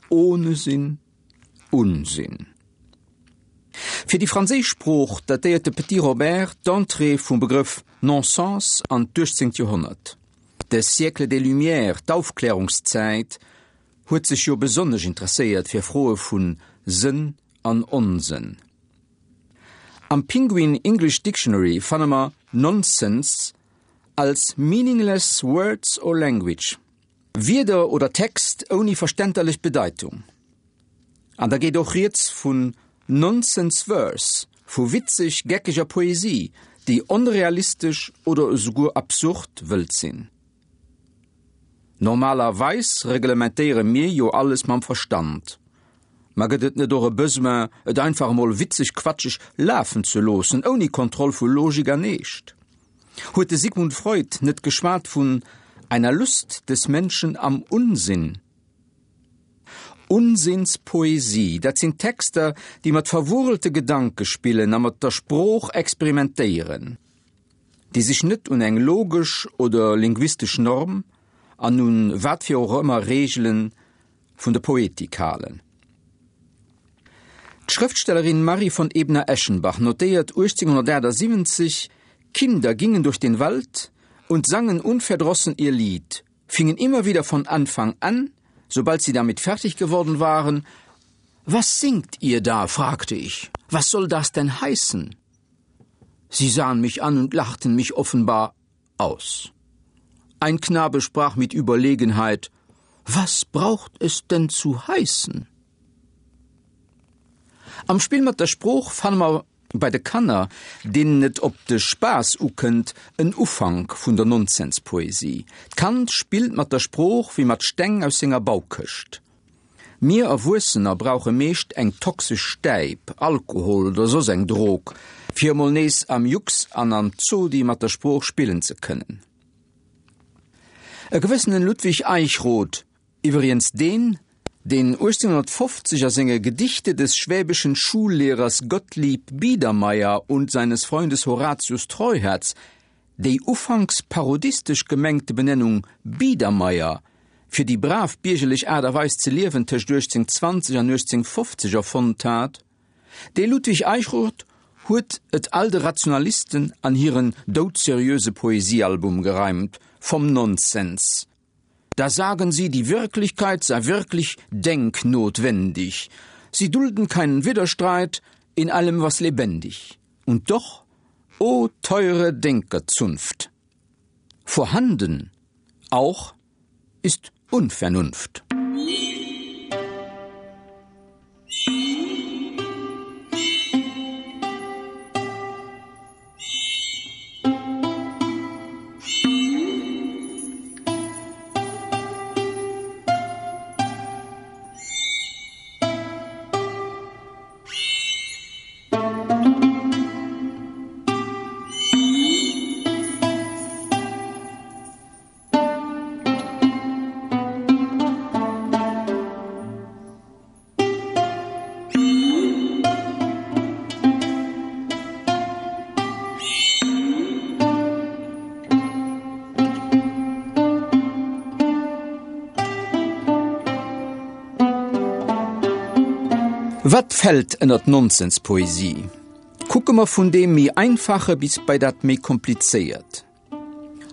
Ohne Sinn Unsinn. Fir déi franséisch Sprooch datéiert de Petit Robert d'Entrée vum Begrëff Non-sens an d'uechtzéngt Joerhonnert. De Siècle des Lumières, d'Aufklärungszäit, huet sech jo besonnesch interesséiert fir Froe vu Sënn an Onsënn. Am Penguin English Dictionary fanne mer Nonsense als meaningless words or language, Wierder oder Text ouni verstänterlech Bedeitung. An da geet och rieds vun Nonsense Verse, vu witzeg geckeger Poesie, déi onrealistesch oder esouguer absurd wëllt sinn. Normalerweis reglementéiere mir jo alles mam Verstand. Ma gëtt et net och e Besoin, et einfach emol witzeg quatscheg lafen ze loossen, ouni Kontroll vu Logik an Eescht? Huet de Sigmund Freud net geschwat vun einer Lust des Menschen am Unsinn? Unsinnspoesie, dat sinn Texter, déi mat verwurelte Gedanke spillen a mat der Sprooch experimentéieren, déi sech net un eng logesch oder linguistesch Norm an un wat fir och ëmmer Reegele vun der Poetik halen. D'Schrëftstellerin Marie von Ebner-Eschenbach notéiert 1878, Kinder gingen durch den Wald und sangen unverdrossen ihr Lied, fingen immer wieder von Anfang an, sobald sie damit fertig geworden waren, Was singt ihr da? fragte ich. Was soll das denn heißen? Sie sahen mich an und lachten mich offenbar aus. Ein Knabe sprach mit Überlegenheit: Was braucht es denn zu heißen? Am Spill mat der Sprooch fanne mer bei de Kanner, deenen et op de Spaass ukënnt, en Ufank vun der Nonsenspoesie. D'Kand spillt mat der Sprooch wéi mat Steng aus senger Baukëscht. Mir Erwuessener brauche meescht eng toxesch Stäip, Alkohol oder soss eng Drog, fir emol nees am Jux an am Zodi mat der Sprooch spillen ze kënnen. E gewëssenen Ludwig Eichrodt, iwwriens deen, deen 1850 a senge Gedichte des schwäbischen Schullehrers Gottlieb Biedermeier und seines Freundes Horatius Treuherz déi ufanks parodistesch gemengte Benennung Biedermeier fir déi brav biergerlech Aart a Weis ze liewen tëscht 1820 an 1850 erfonnt hat. Dee Ludwig Eichrodt huet et all de Rationalisten an hiren doudseriöse Poesiealbum gereimt, vom Nonsens. Da sagen sie, die Wirklichkeit sei wirklich denknotwendig. Sie dulden keinen Widerstreit in allem, was lebendig. Und doch, o teure Denkerzunft, vorhanden auch ist Unvernunft. Wat fält ënner d'Nonsenspoesie? Kucke mer vun deem méi Einfache bis bei dat méi Komplizéiert.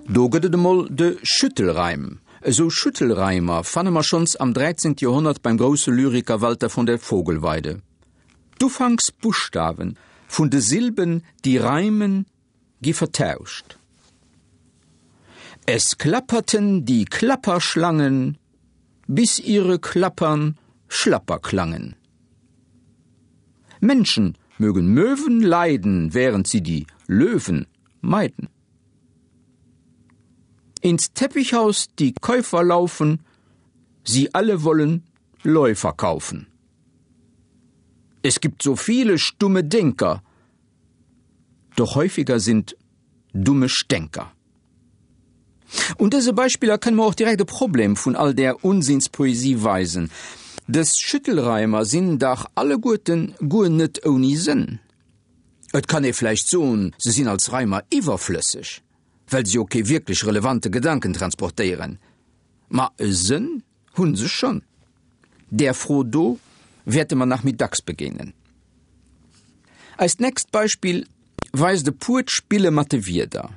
Do gëtt et emol de Schüttelreim. Esou Schüttelreimer fanne mer schonns am 13. Joerhonnert beim grousse Lyriker Walter von der Vogelweide. D'Ufanksbuschtawe vun de Silben, déi reimen, gi vertauscht. Es klapperten die Klapperschlangen, bis ihre Klappern schlapper klangen. Menschen mögen Möwen leiden, während sie die Löwen meiden. Ins Teppichhaus die Käufer laufen, sie alle wollen Läufer kaufen. Es gibt so viele stumme Denker, doch häufiger sind dumme Stänker. Un dëse Beispiller kënne mer och direkt e Problem vun all där Unsinnspoesie weisen. Dës Schüttelreimer sinn dach alleguerten guer net ouni Sënn. Et kann ee vläicht soen, se sinn als Reimer iwwerflësseg, well se jo kee wierklech relevante Gedanken transportéieren. Ma e Sënn hu se schonn. Där Fro do wäerte mer nach méi dacks begéinen. Eist nächst Beispill weist e puert Spille mat de Wierder.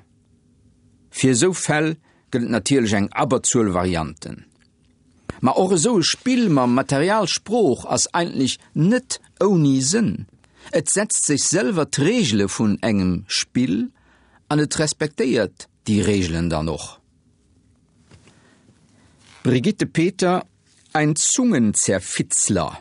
Fir esou Fäll gëtt et natierlech eng Abberzuel Varianten. Ma och esou e Spill mam Material Sprooch ass eigentlech net ouni Sënn. Et setzt sech selwer d'Reegele vun engem Spill an et respektéiert déi Reegelen dann och. Brigitte Peter, Ein Zungenzerfitzler.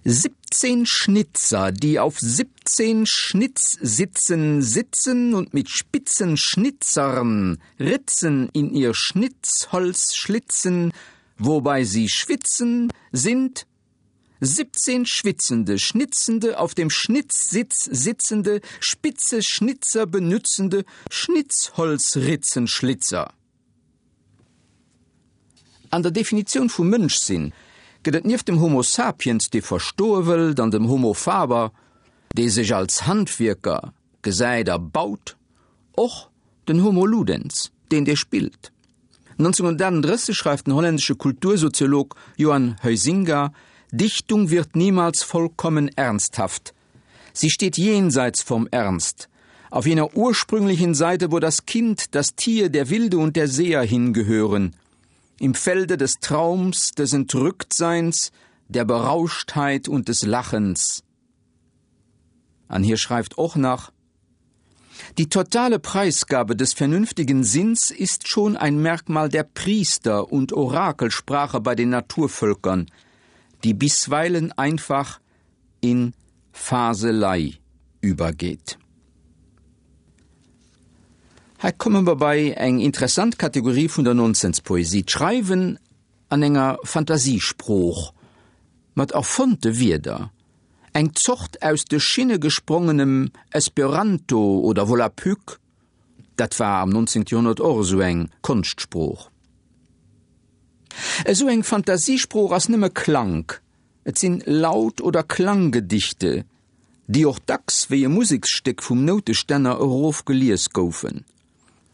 17 Schnitzer, die auf 17 Schnitzsitzen sitzen und mit spitzen Schnitzern Ritzen in ihr Schnitzholz schlitzen, wobei sie schwitzen, sind 17 schwitzende, schnitzende, auf dem Schnitzsitz sitzende, spitze Schnitzer benützende Schnitzholzritzenschlitzer. An der Definitioun vum Mënschsinn gëtt et nieft dem Homo sapiens, dee verstoe wëllt, an dem Homo faber, dee sech als Handwierker gesäit a baut, och den Homo ludens, deen dee spillt. 1938 schreift den holländesche Kultursoziolog Johan Huizinga, Dichtung wird niemals vollkommen ernsthaft. Sie steht jenseits vom Ernst, auf jener ursprünglichen Seite, wo das Kind, das Tier, der Wilde und der Seher hingehören, im Felde des Traums, des Entrücktseins, der Berauschtheit und des Lachens. An hier schreift och nach: Die totale Preisgabe des vernünftigen Sinns ist schon ein Merkmal der Priester und Orakelsprache bei den Naturvölkern, die bisweilen einfach in Faselei übergeht. Hei komme mer bei eng interessant Kategorie vun der Nonsenspoesie, d'Schreiwen an enger Fantasiesprooch, mat erfonnte Wierder, eng Zort aus de Schinne gesprongenem Esperanto oder Volapük, dat war am 19. Joerhonnert och esou eng Konschtsprooch. Esou eng Fantasiesprooch ass nëmme Klank, Et sinn Laut oder Klanggedichte, déi och dacks wéi e Museksstéck vum Noutestänner erof gelies goufen.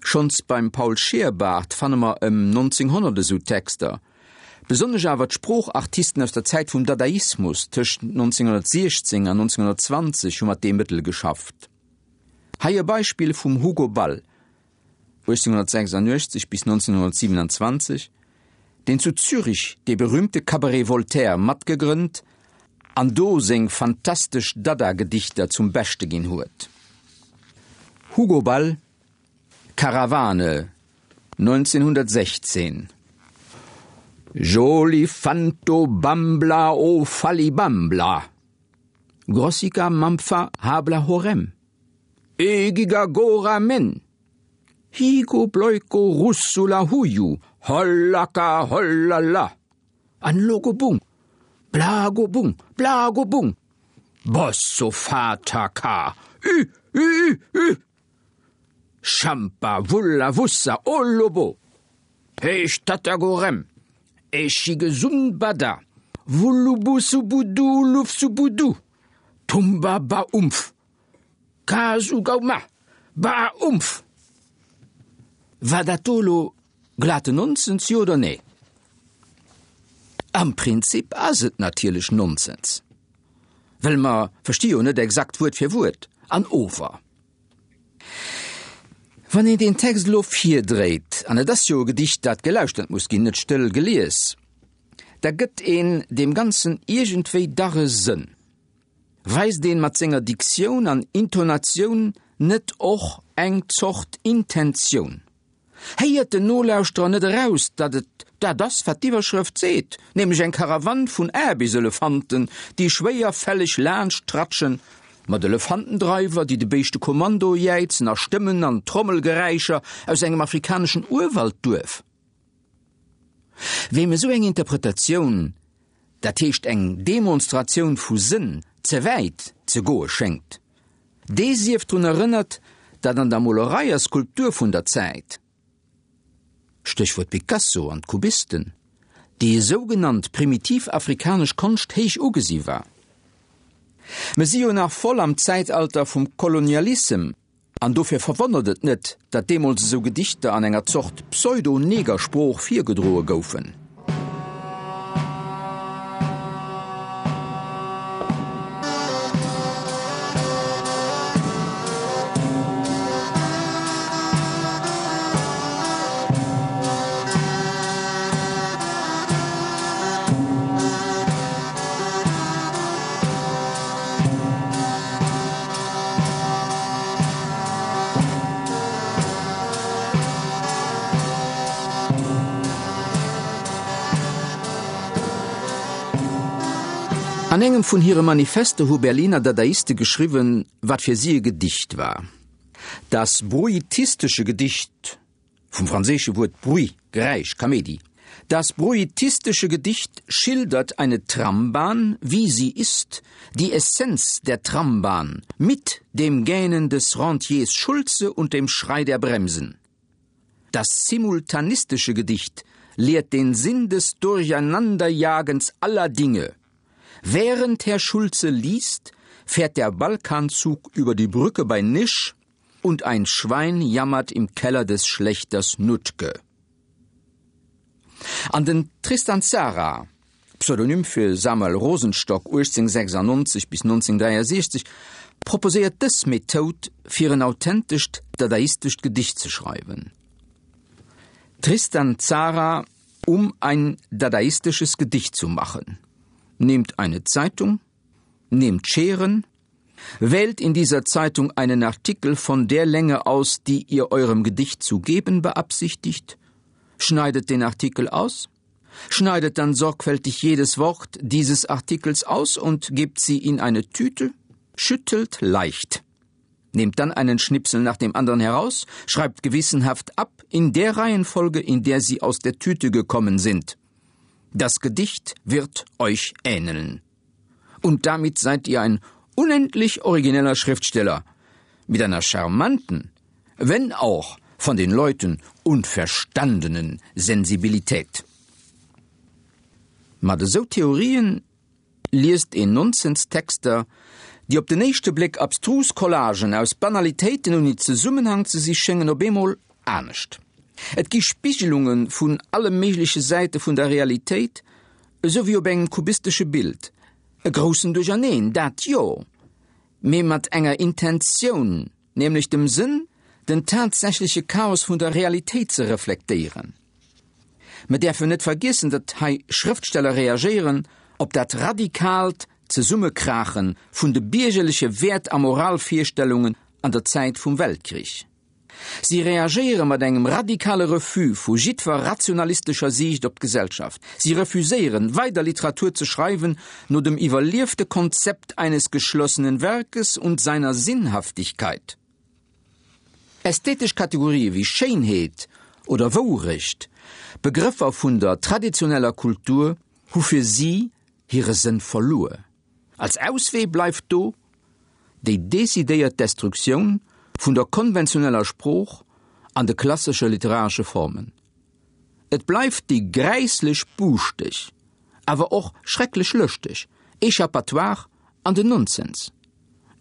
Schonns beim Paul Scheerbart fanne mer ëm 1900 esou Texter. Besonnesch awer d'Sproochartisten aus der Zäit vum Dadaismus tëscht 1916 an 1920 hu mat deem Mëttel geschafft. Hei e Beispill vum Hugo Ball, 1886 bis 1927, deen zu Zürich dee berühmte Cabaret Voltaire matgegrënnt an do seng fantastesch Dada-Gedichter zum Beschte ginn huet. Hugo Ball, Karawane, 1916, Joli fanto bambla o falibambla, Grossica mampfa habla horem. Egigagora men! Higo bloiko russula huju, hollaka hollala! An logobung, blagobung, blagobung! Bossofataka, ü, ü, ü, ü! Champa wulla wussa olobo! Heeschtatagorem, Echigesunbada, Wullubusubudu lufsubudu, Tumba baumf! Kasugauma! Ba-umph! War dat do elo glaten Nonsens, jo oder nee? Am Prinzip ass et natierlech Nonsens, well mer versti jo net exakt Wuert fir Wuert, an ower wann een deen Text elo virdréit, an et ass jo e Gedicht, dat gelauschtert muss ginn, net stëll gelies, da gëtt een deem Ganzen iergendwéi dach e Sënn. Weist een mat senger Diktioun an Intonatioun net och eng Zort Intentioun? Héiert den Nolauschterer net eraus, datt et dat ass, wat d'Iwwerschrëft seet, nämlech eng Karawann vun Aarbechtselefanten, déi schwéierfälleg laanscht tratschen, mat Elefantendreiwer, déi de Béischte Kommando jäizen a Stëmmen an Trommelgeräischer aus engem afrikaneschen Urwaldduerf? Weem esou eng Interpretatioun, dat heescht eng Demonstratioun vu Sënn, ze wäit ze goe schéngt, dee sief drun erënnert, datt an der Molerei a Skulptur vun der Zäit, Stéchwuert Picasso an d'Kubisten, déi sougenannt primitiv afrikanesch Konscht héich ugesi war. Mer si jo nach voll am Zäitalter vum Kolonialissem An dofir verwonnert et net, datt deemools esou Gedichter an enger Zort Pseudo-Negersprooch virgedroe goufen. An engem vun hire Manifester hu Berliner Dadaiste geschriwwen, wat fir si e Gedicht war. Das bruitistesche Gedicht, vum franséische Wuert bruit, Geräisch, Kaméidi, Das bruitistische Gedicht schildert eine Trambahn, wie sie ist, die Essenz der Trambahn, mit dem Gähnen des Rentiers Schulze und dem Schrei der Bremsen. Das simultanistische Gedicht lehrt den Sinn des Durcheinanderjagens aller Dinge. Während Herr Schulze liest, fährt der Balkanzug über die Brücke bei Nisch und ein Schwein jammert im Keller des Schlechters Nutke. An den Tristan Tzara, Pseudonym fir Samuel Rosenstock, 1896 bis 1963, proposéiert dës Methoud fir en authentescht dadaistescht Gedicht ze schreiwen. Tristan Tzara, Um ein dadaistisches Gedicht zu machen. Nehmt eine Zeitung, nehmt Scheren, wählt in dieser Zeitung einen Artikel von der Länge aus, die ihr eurem Gedicht zu geben beabsichtigt, schneidet den Artikel aus, schneidet dann sorgfältig jedes Wort dieses Artikels aus und gebt sie in eine Tüte, schüttelt leicht. Nehmt dann einen Schnipsel nach dem anderen heraus, schreibt gewissenhaft ab in der Reihenfolge, in der sie aus der Tüte gekommen sind. Das Gedicht wird euch ähneln. Und damit seid ihr ein unendlich origineller Schriftsteller mit einer charmanten, wenn auch von den Leuten unverstandenen Sensibilität. Mat esou Theorien liest een Nonsenstexter, déi op den éischte Bléck abstrus Collagen aus Banalitéiten ouni Zesummenhang ze si schéngen, op eemol anescht. Et gi Spigelunge vun alle méigleche Säite vun der Realitéit, esou wéi op engem kubistesche Bild. E groussen Duercherneen, dat jo, mee mat enger Intentioun, nämlech dem Sënn, den tatsächleche Chaos vun der Realitéit ze reflektéieren. Mer däerfen net vergiessen, datt hei Schrëftsteller reagéieren op dat radikaalt Zesummekrache vun de biergerleche Wäert a Moralvirstellungen an der Zäit vum Weltkrich. Si reagéiere mat engem radikale Refus vu jiddwer rationalistescher Siicht op d'Gesellschaft. Si refuséieren, weider Literatur ze schreiwen no dem iwwerliefte Konzept eines geschlossenen Werkes und seiner Sinnhaftigkeit. Ästhetesch Kategorië wéi Schéinheet oder Wourecht, Begrëffer vun der traditioneller Kultur, hu fir si hire Sënn verluer. Als Auswee bleift do déi decidéiert Destruktioun vun der konventioneller Sprooch an de klassesche literaresche Formen. Et bleift déi gräisslech buuschteg, awer och schrecklech lëschteg Échappatoire an den Nonsens.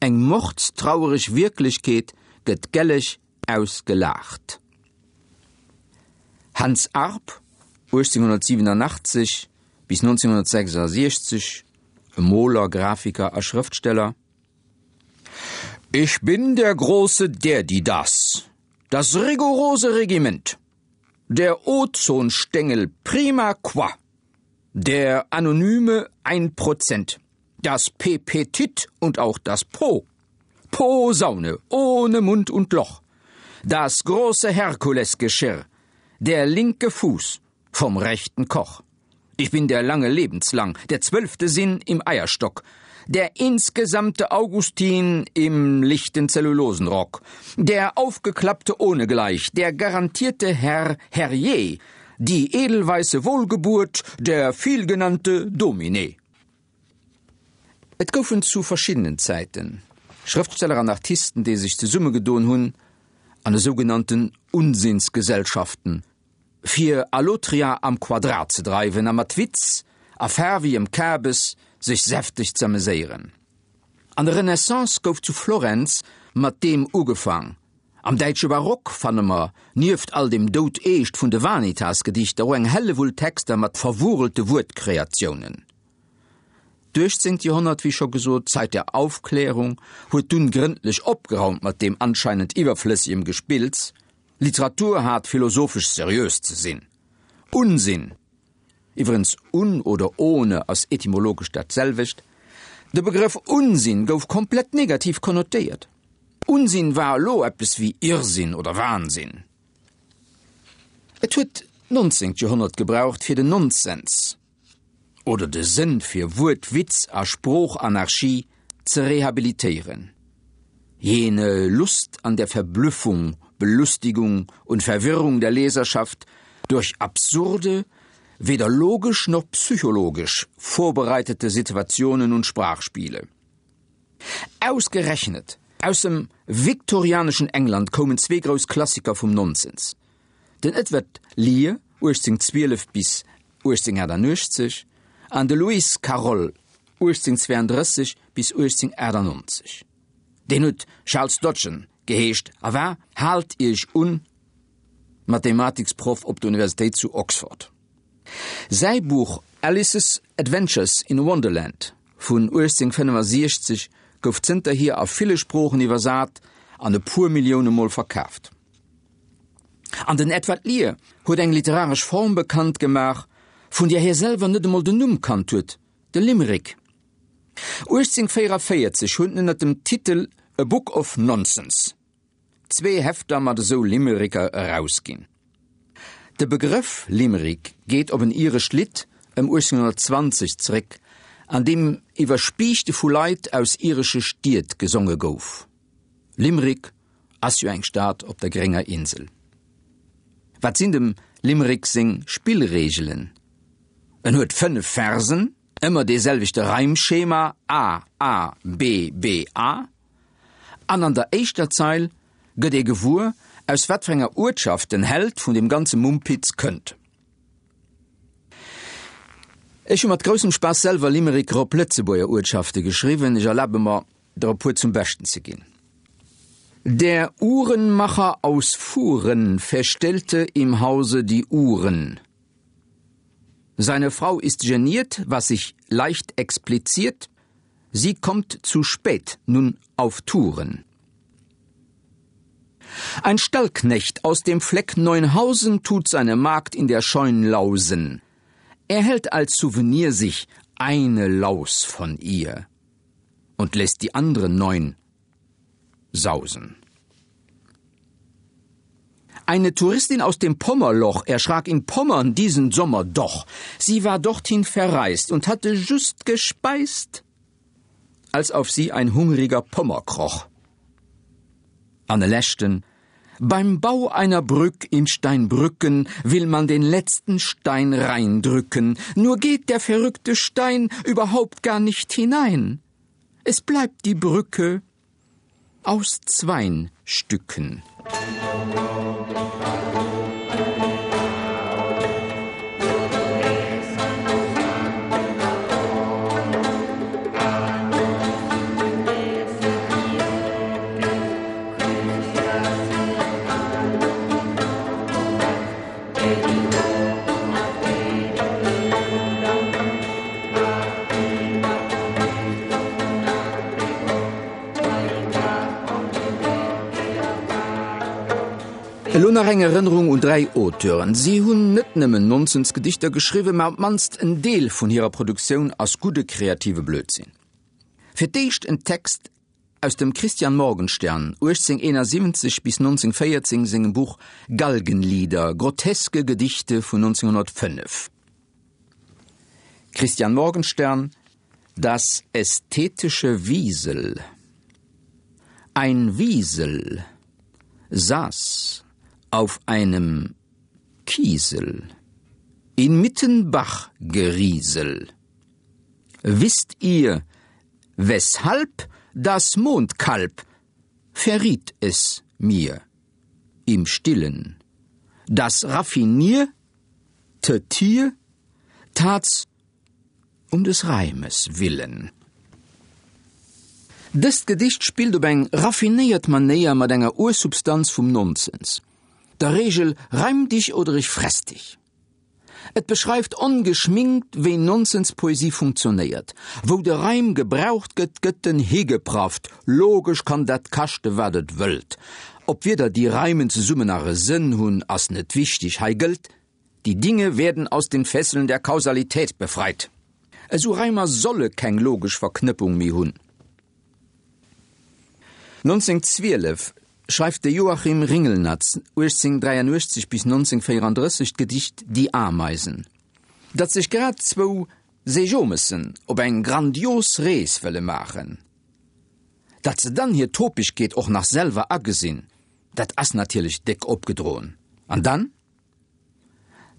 Eng mordstrauereg Wierklechkeet gëtt gelleg ausgelaacht. Hans Arp, 1887 bis 1966, e Moler, Grafiker a Schrëftsteller, Ich bin der große Derdidas, das rigorose Regiment, der Ozonstengel prima qua, der anonyme Einprozent, das Pepetit und auch das Po. Posaune ohne Mund und Loch, das große Herkulesgeschirr, der linke Fuß vom rechten Koch. Ich bin der lange lebenslang, der zwölfte Sinn im Eierstock, der insgesamte Augustin im lichten Zellulosenrock, der aufgeklappte ohnegleich, der garantierte Herr Herrje, die edelweiße Wohlgeburt, der vielgenannte Domine. Et goufen zu verschiddenen Zäiten Schrëftsteller an Artisten, déi sech zesummegedoen hunn an esougenannten Unsinnsgesellschaften, fir Allotria am Quadrat ze dreiwen a mat Witz a faarwegem Kabes sech säfteg z'ameséieren. An der Renaissance gouf zu Florenz mat deem ugefaang. Am däitsche Barock fanne mer, nieft all dem Doudeescht vun de Vanitas-Gedichter, och eng Hellewull Texter mat verwurelte Wuertkreatiounen. D'uechtzéngt Joerhonnert, wéi scho gesot, d'Zeit der Aufklärung, huet dunn grëndlech opgeraumt mat deem anscheinend iwwerflëssegem Gespills, Literatur hat philosophesch seriös ze sinn. Unsinn! Iwwerens un oder ohne ass etymologesch dat selwecht. De Begrëff Unsinn gouf komplett negativ konnotéiert. Unsinn war elo eppes wéi Irrsinn oder Wahnsinn. Et huet d'nonzéngt Joerhonnert gebraucht fir den Nonsens. Oder de Sënn fir Wuertwitz a Sproochanarchie ze rehabilitéieren. Jene Lust an der Verblüffung, Belustigung und Verwirrung der Leserschaft durch absurde, weder logisch noch psychologisch vorbereitete Situationen und Sprachspiele. Ausgerechnet aus dem viktorianeschen England koumen zwee grouss Klassiker vum Nonsens, den Edward Lear, 1812 bis 1888, an de Lewis Carroll, 1832 bis 1898. Deen huet Charles Dodgson geheescht a war, haalt Iech un, Mathematiksproff op der Universitéit zu Oxford. Säi Buch Alice's Adventures in Wonderland vun 1865 gouf zënterhier a ville Sproochen iwwersat an e puer Millioune Mol verkaaft. An den Edward Lear huet eng literaresch Form bekannt gemaach, vun där hie selwer net emol den Numm kannt huet, de Limerick. 1844 huet en ënner dem Titel A Book of Nonsense zwee Hefter mat esou Limericker erausginn. De Begrëff Limerick geet op en irescht Lidd ëm 1820 zeréck, an deem iwwer Spiichte vu Leit aus iresche Stied gesonge gouf. Limerick ass jo eng Stad op der grénger Insel. Wat sinn dem Limerick seng Spillreegelen? En huet 5 Versen, ëmmer dee selwechte Reimschema, A, A, B, B, A. An an der éischter Zeil gëtt ee gewuer, aus wat fir enger Uertschaft den Held vun deem ganze Mumpitz kënnt. Ech hu mat groussem Spaass selwer Limericker op Lëtzebuerger Uertschafte geschriwwen. Ech erlabe mer, der e puer zum Beschten ze ginn. Der Uhrenmacher aus Fuhren verstellte im Hause die Uhren. Seine Frau ist geniert, was sich leicht expliziert, Sie kommt zu spät nun auf Touren. Ein Stallknecht aus dem Fleck Neunhausen tut seine Magd in der Scheun lausen. Er hält als Souvenir sich eine Laus von ihr und lässt die anderen neun sausen. Eine Touristin aus dem Pommerloch erschrak in Pommern diesen Sommer doch. Sie war dorthin verreist und hatte just gespeist, als auf sie ein hungriger Pommer kroch. Anne Lächten Beim Bau einer Brück in Steinbrücken will man den letzten Stein reindrücken, nur geht der verrückte Stein überhaupt gar nicht hinein. Es bleibt die Brücke aus zwein Stücken. Elo nach eng Erënnerung un 3 Auteuren. Si hunn net nëmmen Nonsensgedichter geschriwwen, mä op d'mannst en Deel vun hirer Produktioun ass gudde kreative Blödsinn. Fir d'éischt en Text aus dem Christian Morgenstern, 1871 bis 1914, sengem Buch Galgenlieder, groteske Gedichte vun 1905. Christian Morgenstern, Das ästhetische Wiesel Ein Wiesel saß auf einem Kiesel inmitten Bachgeriesel. Wisst ihr, weshalb das Mondkalb verriet es mir im Stillen, das raffinier te Tier tat's um des Reimes willen. Dëst Gedicht spillt op eng raffinéiert Manéier mat enger Ursubstanz vum Nonsens, der Reegel Reim dich oder ich fress dich. Et beschreift ongeschminkt, wéi Nonsenspoesie funktionéiert. Wou de Reim gebraucht gëtt, gëtt en higeprafft. Logesch kann dat kaschte wat et wëllt. Ob Wierder déi reimen zesummen nach e Sënn hunn, ass net wichteg. Hei gëllt, Die Dinge werden aus den Fesseln der Kausalität befreit. Esou Reimer solle keng logesch Verknëppung méi hunn. 1912 schreift de Joachim Ringelnatz, 1883 bis 1934, d'Gedicht Die Ameisen, dat sech grad zwou. Seejomessen op eng grandios Rees wëlle maachen. Datt se dann hir Topegkeet och nach selwer agesinn, dat ass natierlech déck opgedroen. An dann?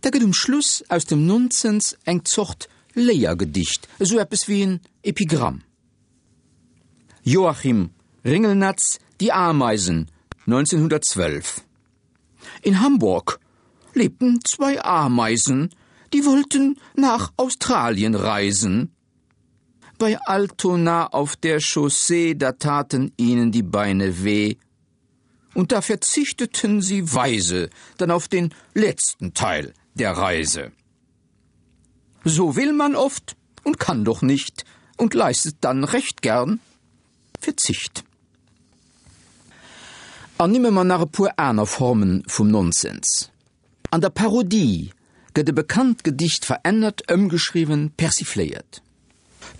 Da gëtt um Schluss aus dem Nonsens eng Zort Léiergedicht, esou eppes wéi en Epigramm. Joachim Ringelnatz, Die Ameisen, 1912 In Hamburg lebten zwei Ameisen, die wollten nach Australien reisen. Bei Altona auf der Chaussee, da taten ihnen die Beine weh. Und da verzichteten sie weise dann auf den letzten Teil der Reise. So will man oft und kann doch nicht und leistet dann recht gern Verzicht. Ernimme mer nach e puer aner Formen vum Nonsens. An der Parodie gëtt e bekannt Gedicht verännert, ëmgeschriwwen, persifléiert.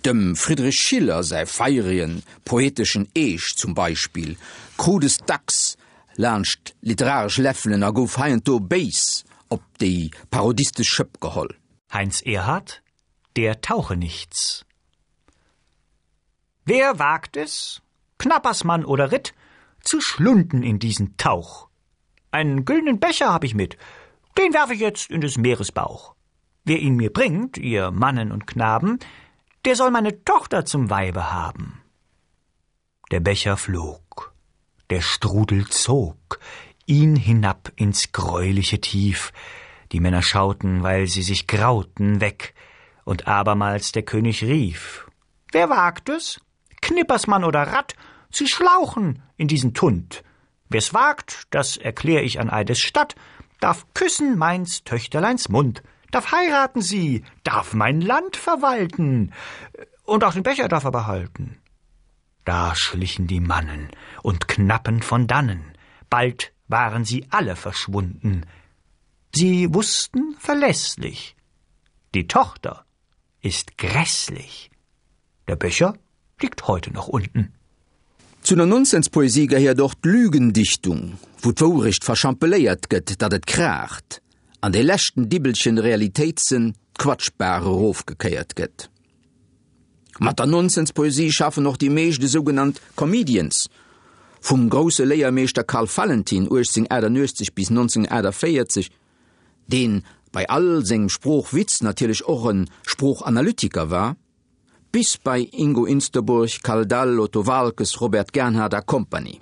Dem Friedrich Schiller säi feieregen, poeteschen Eescht zum Beispill krut es dacks laanscht literaresch Läffelen a gouf heiansdo béis op déi parodistesch Schëpp geholl. Heinz Erhardt, Der Tauchenichts. Wer wagt es, Knappersmann oder Ritt, zu schlunden in diesen Tauch? Einen güldenen Becher hab ich mit, den werf ich jetzt in des Meeres Bauch. Wer ihn mir bringt, ihr Mannen und Knaben, der soll meine Tochter zum Weibe haben. Der Becher flog, der Strudel zog ihn hinab ins greuliche Tief. Die Männer schauten, weil sie sich grauten, weg, und abermals der König rief: Wer wagt es, Knippersmann oder Rat, zu schlauchen in diesen Tund? Wer's wagt, das erklär ich an Eides Statt, darf küssen meins Töchterleins Mund, darf heiraten sie, darf mein Land verwalten, und auch den Becher darf er behalten. Da schlichen die Mannen und Knappen von dannen, bald waren sie alle verschwunden. Sie wussten verlässlich, die Tochter ist grässlich. Der Becher liegt heute noch unten. Zu der Nonsenspoesie gehéiert och d'Lügendichtung, wou d'Wourecht verschampeléiert gëtt, datt et kraacht, an dee leschten Dibbelchen Realitéitssënn d'Quatschbaach erofgekéiert gëtt. Mat der Nonsenspoesie schaffen och déi meescht esougenannt Comedians, vum grousse Léiermeeschter Karl Valentin, 1888 bis 1948, deen bei all sengem Sproochwitz natierlech och e Sproochanalytiker war, bis bei Ingo Insterburg, Karl Dall, Otto Waalkes, Robert Gernhardt a Kompanie.